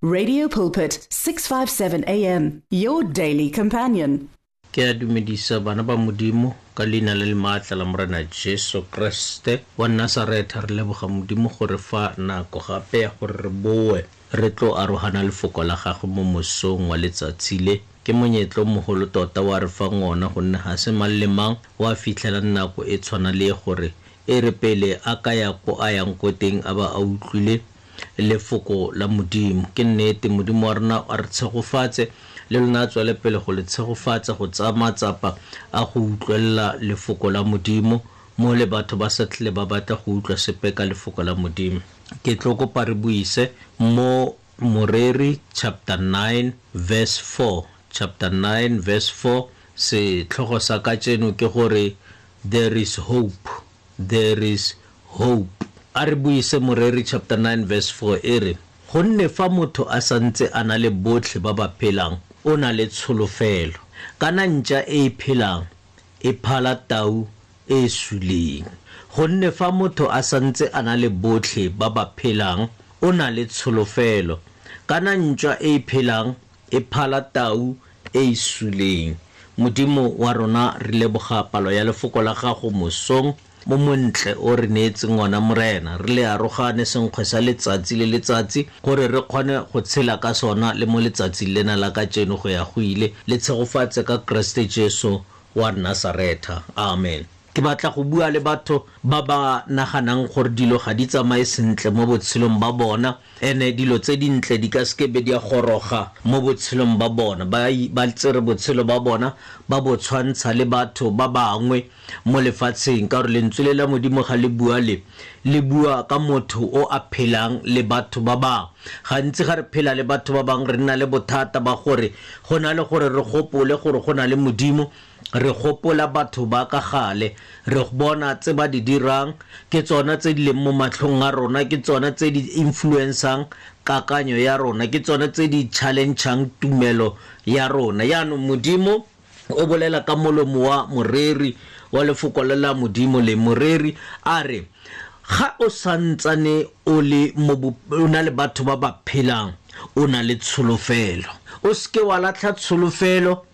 Radio Pulpit 657 AM, your daily companion. Ke a dumedisa bana ba Modimo ka leina le le maatla la Morena Jesu Kriste wa Nasaretha. Re leboga Modimo gore fa nako gape ya gore re boe re tlo arogana lefoko la gagwe mo mosong wa letsatsi le. Ke monyetlo o mogolo tota wa re fang ona, gonne ga se mang le mang wa fitlhelang nako e tshwana le gore e re pele a ka ya ko a yang ko teng a ba a utlwile lefoko la Modimo. Ke nnete, Modimo wa rona a re tshegofatse le lona, a tswele pele go le tshegofatsa go tsaya matsapa a go utlwelela lefoko la Modimo mo le batho ba sa tlhele ba batla go utlwa sepe ka lefoko la Modimo. Ke tlo kopa re buise mo Moreri chapter 9 verse 4, chapter 9 verse 4. Setlhogo sa kajeno ke gore there is hope, there is hope. A re buise Moreri chapter 9 verse 4, e re: gonne fa motho a santse a na le botlhe ba ba phelang, o na le tsholofelo. Kana ntša e e phelang e phala tau e e suleng. Gonne fa motho a santse a na le botlhe ba ba phelang, o na le tsholofelo. Kana ntšwa e e phelang e phala tau e e suleng. Modimo wa rona, re leboga palo ya lefoko la gago mosong mo montle o re neetseng ona, Morena. Re le arogane senkgwe sa letsatsi le letsatsi gore re kgone go tshela ka sona le mo letsatsing lena la kajeno go ya go ile. Le tshegofatse ka Kriste Jesu wa Nasaretha. Amen. Ke batla go bua le batho ba ba naganang gore dilo ga di tsamaye sentle mo botshelong ba bona, ene dilo tse dintle di ka seke be di a goroga mo botshelong ba bona. Ba tsere botshelo ba bona ba bo tshwantsha le batho ba bangwe mo lefatsheng, ka gore lentswe le la Modimo ga le bua le le bua ka motho o a phelang le batho ba bangwe. Gantsi ga re phela le batho ba bangwe re nna le bothata ba gore go na le gore re gopole gore go na le Modimo, re gopola batho ba ka gale, re bona tse ba di dirang, ke tsona tse di leng mo matlhong a rona, ke tsona tse di influencang kakanyo ya rona, ke tsona tse di challengeng tumelo ya rona. Yaanong Modimo o bolela ka molomo wa moreri wa lefoko le la Modimo le moreri a re, ga o santsane o le mo o na le batho ba ba phelang, o na le tsholofelo. O seke wa latlha tsholofelo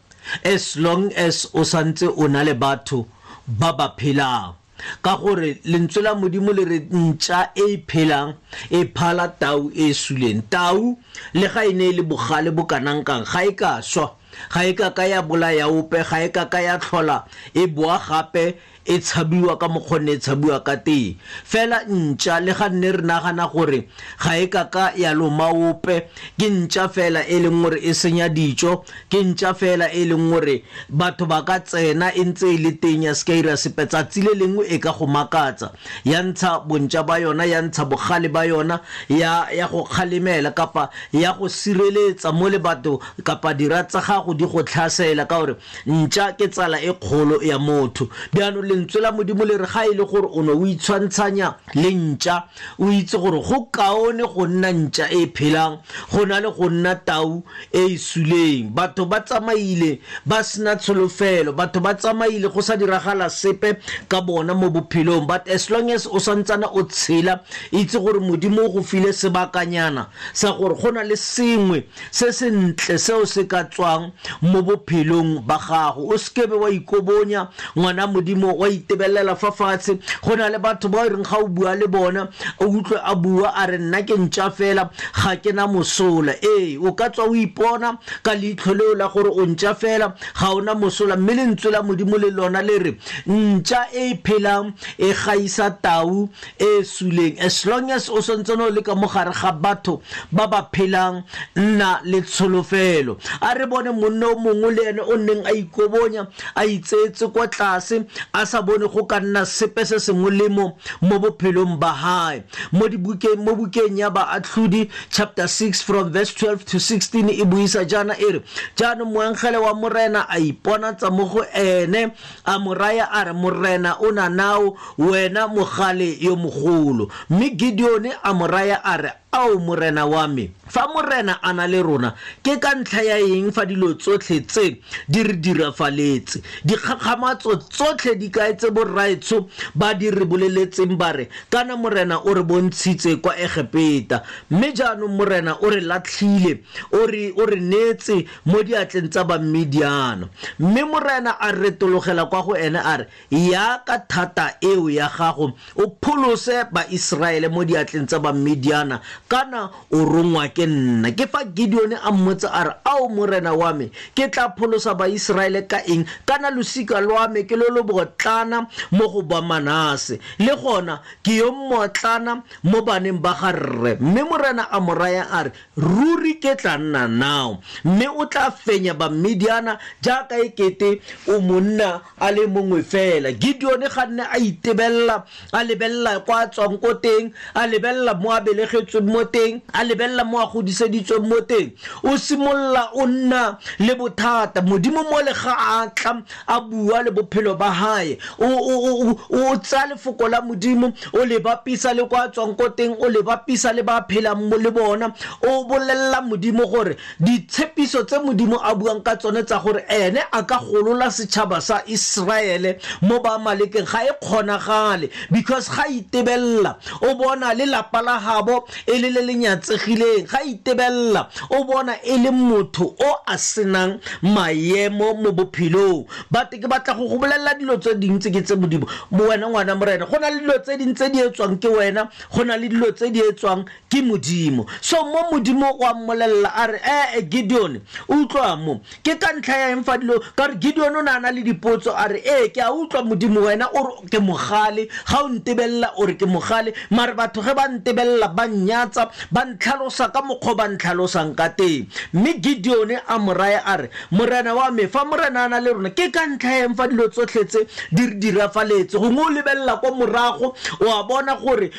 as long as o santse o na le batho ba ba phelang, ka gore lentswe la Modimo le re ntša e e phelang e phala tau e e suleng. Tau le ga e ne e le bogale bo kanang kang, ga e ka swa, ga e ka ka ya bolaya ope, ga e ka ka ya tlhola e boa gape e tshabiwa ka mokgwa e tshabiwa ka teng. Fela ntša le ga nne re nagana gore ga e ka ka ya loma ope, ke ntša fela e leng gore e senya dijo, ke ntša fela e leng gore batho ba ka tsena e ntse e le teng ya seka ira sepe. Tsatsi le lengwe e ka go makatsa, ya ntsha bontša ba yona, ya ntsha bogale ba yona, ya go kgalemela kapa ya go sireletsa mo le batho kapa dira tsa gago di go tlhasela, ka gore ntša ke tsala e kgolo ya motho. Bjaanong lentswe la Modimo le re ga e le gore o ne o itshwantshanya le ntša, o itse gore go kaone go nna ntša e phelang go na le go nna tau e e suleng. Batho ba tsamaile ba sena tsholofelo, batho ba tsamaile go sa diragala sepe ka bona mo bophelong, but as long as o santsana o tshela, itse gore Modimo o go file sebakanyana sa gore go na le sengwe se sentle seo se ka tswang mo bophelong ba gago. O seke be wa ikobonya, ngwana Modimo, wa itebelela fa fatshe. Go na le batho ba e reng ga o bua le bona o utlwe a bua a re nna ke ntša fela, ga ke na mosola. Ee, o ka tswa o ipona ka leitlho leo la gore o ntša fela, ga ona mosola, mme lentswe la Modimo le lona le re ntša e e phelang e gaisa tau e suleng. As long as o santsane o le ka mo gare ga batho ba ba phelang, nna le tsholofelo. A re bone monna o mongwe le ene o nneng a ikobonya, a itseetse kwa tlase, a sa bone go ka nna sepe se se molemo mo bophelong ba hae. Mo dibukeng, mo bukeng ya Baatlhodi chapter 6 from verse 12 to 16 e buisa jaana e re, jaanong moengele wa Morena a iponatsa mo go ene, a mo raya a re, Morena o na nao, wena mogale yo mogolo. Mme Gideone a mo raya a re, Ao Morena wa me, fa Morena a na le rona, ke ka ntlha ya eng fa dilo tsotlhe tse di re dirafaletse? Dikgakgamatso tsotlhe di kae tse borraetsho ba di re boleletseng ba re, kana Morena o re bontshitse kwa Egepeta, mme jaanong Morena o re latlhile, o re neetse mo diatleng tsa Bamidiana. Mme Morena a retologela kwa go ene a re, ya ka thata eo ya gago o pholose Baiseraele mo diatleng tsa Bamidiana, kana o rongwa ke nna. Ke fa Gideon a mmotsa a re, Ao Morena wa me, ke tla pholosa Baiseraele ka eng? Kana losika lwa me ke lo lo botlana mo go ba Manase, le gona ke yo mmotlana mo baneng ba ga rre. Mme Morena a mo raya a re, ruri ke tla nna nao, mme o tla fenya Bamidiana jaaka ekete o monna a le mongwe fela. Gideon ga nne a itebella, a lebella kwa a tswang ko teng, a lebella mo a belegetsweng mo teng, a lebella mo a godiseditsweng mo teng. O simolola o nna le bothata. Modimo mo le ga a tla a bua le bophelo ba hae, o tsaya lefoko la Modimo, o le bapisa le kwa a tswang ko teng, o le bapisa le ba phelang mo le bona. O bolella Modimo gore ditshepiso tse Modimo a buang ka tsone tsa gore ene a ka golola setšhaba sa Israele mo ba Amalekeng ga e kgonagale, because ga itebella o bona le lapa la gabo e le le le nyatsegileng, ga itebella o bona e le motho o a senang maemo mo bophelong. But ke batla go go bolelela dilo tse dintsi ke tse Modimo mo wena ngwana Morena. Go na le dilo tse ding tse di etswang ke wena, go na le dilo tse di etswang ke Modimo. So mo Modimo wa mmolella a re, Gideon, utlwa mo, ke ka ntlha ya eng fa dilo ka re Gideon o ne a na le dipotso, a re, ke a utlwa Modimo, wena o re ke mogale, ga o ntebella o re ke mogale, mare batho ge ba ntebella ba nnyatsa, ba ntlhalosa ka mokgwa ba ntlhalosang ka teng. Mme Gideon a mo raya a re, Morena wa me, fa Morena a na le rona, ke ka ntlha ya eng fa dilo tsotlhe tse di re dirafaletse? Gongwe o lebella kwa morago, o a bona gore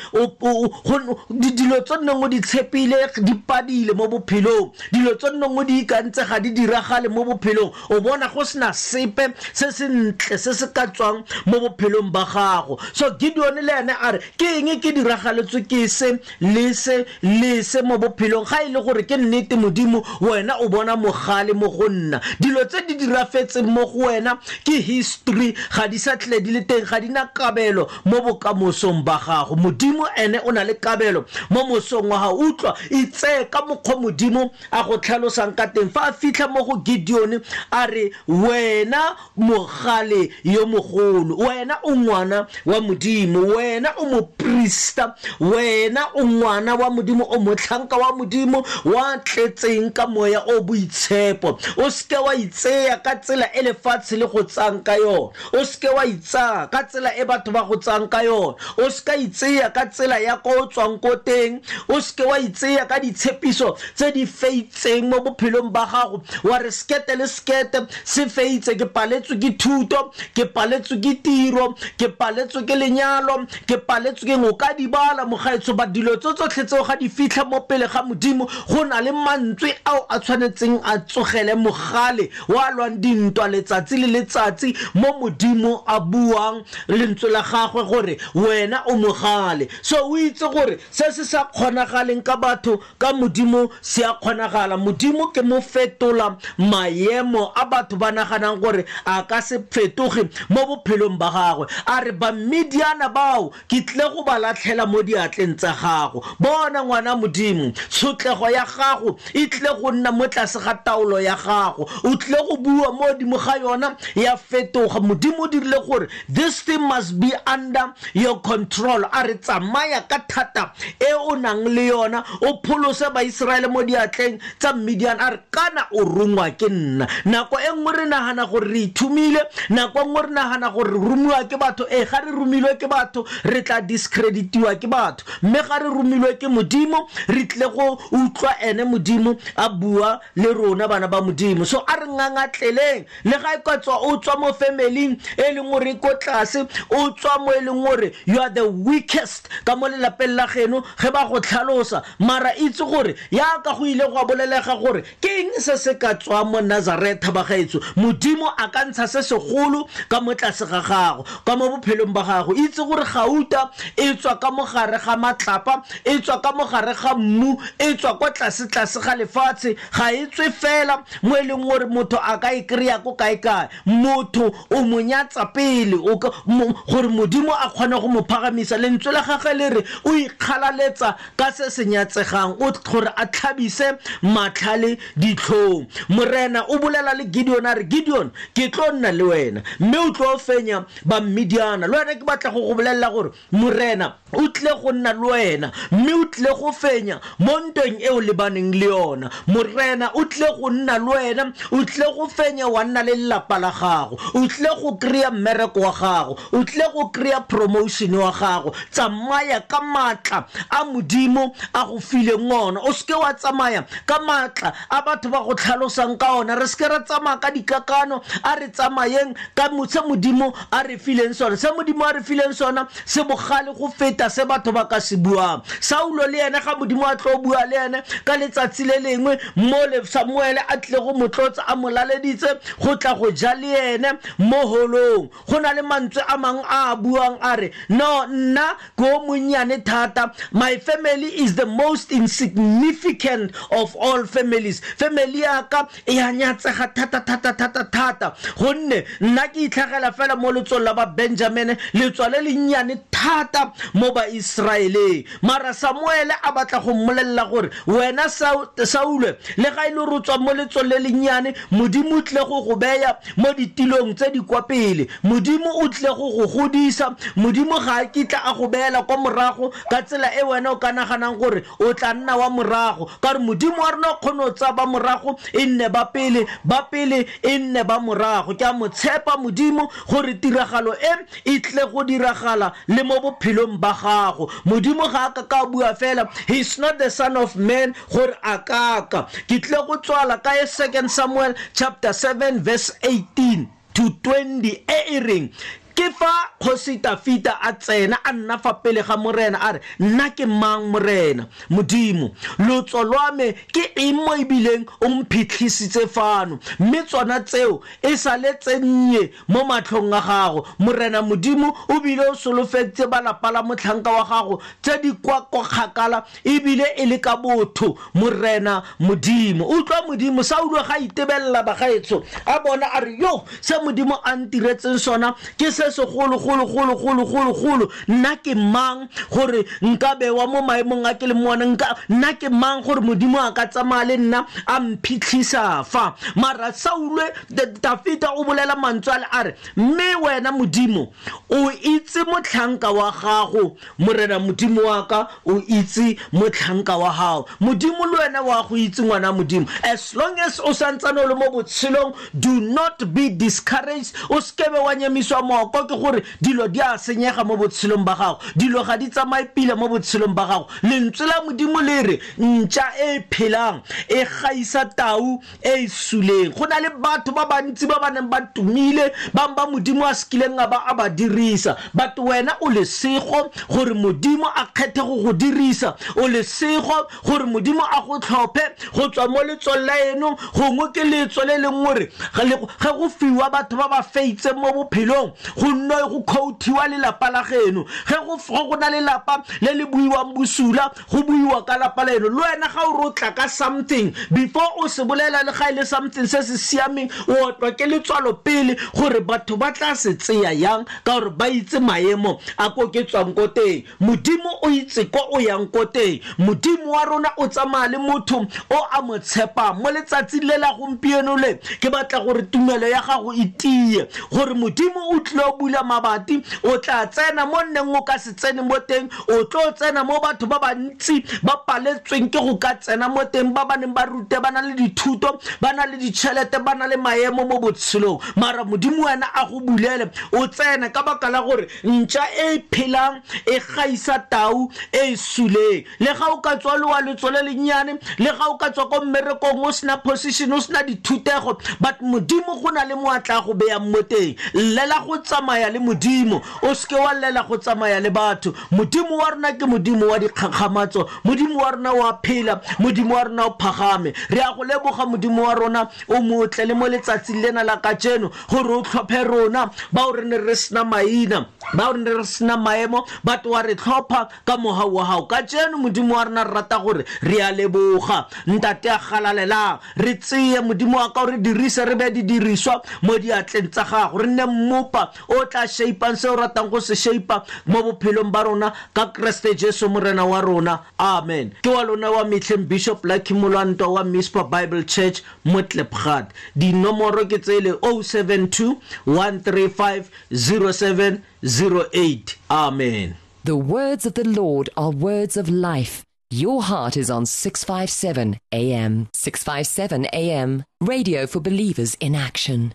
dilo tse nneng o di tshepile di padile mo bophelong, dilo tse nneng o di ikantse ga di diragale mo bophelong, o bona go sena sepe se se ntle se se ka tswang mo bophelong ba gago. So Gideon le ene a re, ke eng ke diragaletswe ke se le se le se mo bophelong? Ga e le gore ke nnete Modimo, wena o bona mogale mo go nna. Dilo tse di dirafetseng mo go wena ke history, ga di sa tle di le teng, ga di na kabelo mo bokamosong ba gago. Modimo ene o na le kabelo mo mosong wa gago. Utlwa, itseye ka mokgwa Modimo a go tlhalosang ka teng. Fa a fitlha mo go Gideon a re, wena mogale yo mogolo, wena o ngwana wa Modimo, wena o moprista, wena o ngwana wa Modimo, o motlhanka wa Modimo wa tletseng ka moya o boitshepo. O seke wa itseya ka tsela e lefatshe le go tsang ka yona, o seke wa itsaya ka tsela e batho ba go tsang ka yona, o seka itseya ka tsela ya ko o tswang ko teng, o seke wa itseya ka ditshepiso tse di feitseng mo bophelong ba gago, wa re sekete le sekete se feitse, ke paletswe ke thuto, ke paletswe ke tiro, ke paletswe ke lenyalo, ke paletswe ke o ka di bala mogaetsho. Ba dilo tse tsotlhe tseo ga di fitlha mo pele ga Modimo, go na le mantswe ao a tshwanetseng a tsogele mogale wa lwang dintwa letsatsi le letsatsi mo Modimo a buang lentswe la gagwe gore wena o mogale. So o itse gore se se sa kgonagaleng ka batho, ka Modimo se a kgonagala. Modimo ke mo fetola maemo a batho ba naganang gore a ka se fetoge mo bophelong ba gagwe. A re, Bamidiana bao ke tle go ba latlhela mo diatleng tsa gago. Bona ngwana Modimo, tshotlego ya gago e tle go nna mo tlase ga taolo ya gago, o tle go bua mo godimo ga yona ya fetoga. Modimo o dirile gore this thing must be under your control. A re, tsamaya ka thata e o nang le yona, o pholose Baiseraele mo diatleng tsa Midian. A re, kana o rongwa ke nna. Nako e nngwe re nagana gore re ithumile, nako e nngwe re nagana gore re romiwa ke batho. Ga re romilwe ke batho re tla discreditiwa ke batho, mme ga re romilwe ke Modimo re tle go utlwa ene Modimo a bua le rona bana ba Modimo. So a re ngangatleleng, le ga e ka tswa o tswa mo family e leng gore ko tlase, o tswa mo e leng gore you are the weakest ka mo lelapeng la geno ge ba go tlhalosa, mara itse gore yaka go ile go bolelega gore ke eng se se ka tswang mo Nazaretha ba gaetsho. Modimo a ka ntsha se segolo ka mo tlase ga gago, ka mo bophelong ba gago. Itse gore gauta e tswa ka mogare ga matlapa, e tswa ka ka mogare ga mmu, e tswa kwa tlase-tlase ga lefatshe, ga e tswe fela mo e leng gore motho a ka e kry-a ko kae-kae. Motho o mo nyatsa pele gore Modimo a kgone go mo phagamisa. Lentswe la gagwe le re o ikgalaletsa ka se se nyatsegang, o gore a tlhabise matlhale ditlhong. Morena o bolela le Gideon a re, Gideon, ke tlo nna le wena mme o tlo fenya Bamidiana. Le wena ke batla go go bolelela gore Morena o tlile go nna le wena mme o tlile go fenya mo ntweng e o lebaneng le yona. Morena o tlile go nna le wena, o tlile go fenya wa nna le lelapa la gago, o tlile go kry-a mmereko wa gago, o tlile go kry-a promotion wa gago. Tsamaya ka maatla a Modimo a go fileng ona, o seke wa tsamaya ka maatla a batho ba go tlhalosang ka ona. Re seke ra tsamaya ka dikakano, a re tsamayeng ka se Modimo a re fileng sona. Se Modimo a re fileng sona se bogale go feta se batho ba ka se buang. Saulo le ene ga Modimo a tlo bua le ene ka letsatsi le lengwe mo le Samuele a tlile go motlotsa, a mo laleditse go tla go ja le ene mo holong, go na le mantswe a mangwe a a buang a re, no, nna ke o monnyane thata, my family is the most insignificant of all families. Family ya ka e a nyatsega thata thata thata thata, gonne nna ke itlhagela fela mo letsong la ba Benjamine, letswa le lennyane thata mo ba Israeleng. Mara Samuele a batla go mmolelela gore wena Saule, le ga e le gore o tswa mo letsong le lennyane, Modimo o tlile go go beya mo ditilong tse di kwa pele, Modimo o tlile go go godisa, Modimo ga a kitla a go beela kwa morago ka tsela e wena o ka naganang gore o tla nna wa morago, ka gore Modimo wa rona o kgone go tsaya ba morago e nne ba pele, ba pele e nne ba morago. Ke a mo tshepa Modimo gore tiragalo e e tle go diragala le mo bophelong ba gago. Modimo ga a ka ka bua fela, he is not the son of man gore a kaka. Ke tle go tswala ka 2 Samuel chapter 7 verse 18 to 20 e e reng, ke fa kgosi Tafita a tsena a nna fa pele ga Morena a re, nna ke mang Morena Modimo, lotso lwa me ke eng mo ebileng o mphitlhisitse fano, mme tsona tseo e sale tse nnye mo matlhong a gago. Morena Modimo o bile o solofeditse ba lapa la motlhanka wa gago tse di kwa kwa kgakala ebile e le ka botho. Morena Modimo, utlwa Modimo. Saulo ga itebelela bagaetsho, a bona a re, yo, se Modimo a ntiretseng sona ke se segolo golo golo golo golo golo. Nna ke mang gore nka bewa mo maemong a ke le mo ona? Nna ke mang gore Modimo a ka tsamaya le nna a mphitlhisa fa? Mara Saulo, Dafita o bolela mantswe a le a re, mme wena Modimo o itse motlhanka wa gago, Morena Modimo wa ka o itse motlhanka wa gago. Modimo le wena wa go itse, ngwana Modimo. As long as o santsane o le mo botshelong, do not be discouraged. O sekebe wa nyamiswa mooko ke gore dilo di a senyega mo botshelong ba gago, dilo ga di tsamaye pila mo botshelong ba gago. Lentswe la Modimo le re ntša e phelang e gaisa tau e e suleng. Go na le batho ba bantsi ba ba neng ba tumile, bang ba Modimo a sekileng a ba a ba dirisa, but wena o lesego gore Modimo a kgethe go go dirisa, o lesego gore Modimo a go tlhophe go tswa mo letsong la eno. Gongwe ke letso le leng gore ge go fiwa batho ba ba feitseng mo bophelong, go nne go quotiwa lelapa la geno. Ge go na lelapa le le buiwang bosula, go buiwa ka lapa la eno. Le wena ga o re o tla ka something, before o se bolela le ga e le something se se siameng, o otlwa ke letswalo pele gore batho ba tla se tseya yang, ka gore ba itse maemo a ko ke tswang ko teng. Modimo o itse ko o yang ko teng. Modimo wa rona o tsamaya le motho o a mo tshepang. Mo letsatsing le la gompieno le, ke batla gore tumelo ya gago e tie, gore Modimo o tlile o bula mabati, o tla tsena mo nneng o ka se tsene mo teng, o tlo tsena mo batho ba bantsi ba paletsweng ke go ka tsena mo teng, ba ba neng ba rute, ba na le dithuto, ba na le ditšhelete, ba na le maemo mo botshelong. Mara Modimo wena a go bulele, o tsene, ka baka la gore ntša e phelang e gaisa tau e e suleng. Le ga o ka tswa le wa letso le lennyane, le ga o ka tswa ko mmerekong o sena position, o sena dithutego, but Modimo go na le mo a tla go beyang mo teng. Llela go tsamaya tsamaya le Modimo, o seke wa llela go tsamaya le batho. Modimo wa rona ke Modimo wa dikgakgamatso, Modimo wa rona wa phela, Modimo wa rona o phagame. Re a go leboga Modimo wa rona o motle le mo letsatsing lena la kajeno gore o tlhophe rona bao re ne re sena maina, bao re ne re sena maemo, batho wa re tlhopha ka mohau wa gago. Kajeno Modimo wa rona re rata gore re a leboga. Ntate a galalelang, re tseye Modimo wa ka o re dirise, re be didiriswa mo diatleng tsa gago, re nne mmopa o tla shaipang se o ratang go se shaipa mo bophelong ba rona ka Kriste Jesu Morena wa rona. Amen. Ke wa lona wa mehleng Bishop Lucky Molwantwa wa Mispa Bible Church mo Klipgat. Dinomoro ke tsele 072 135 0708. Amen. The words of the Lord are words of life. Your heart is on 657 AM. 657 AM. Radio for believers in action.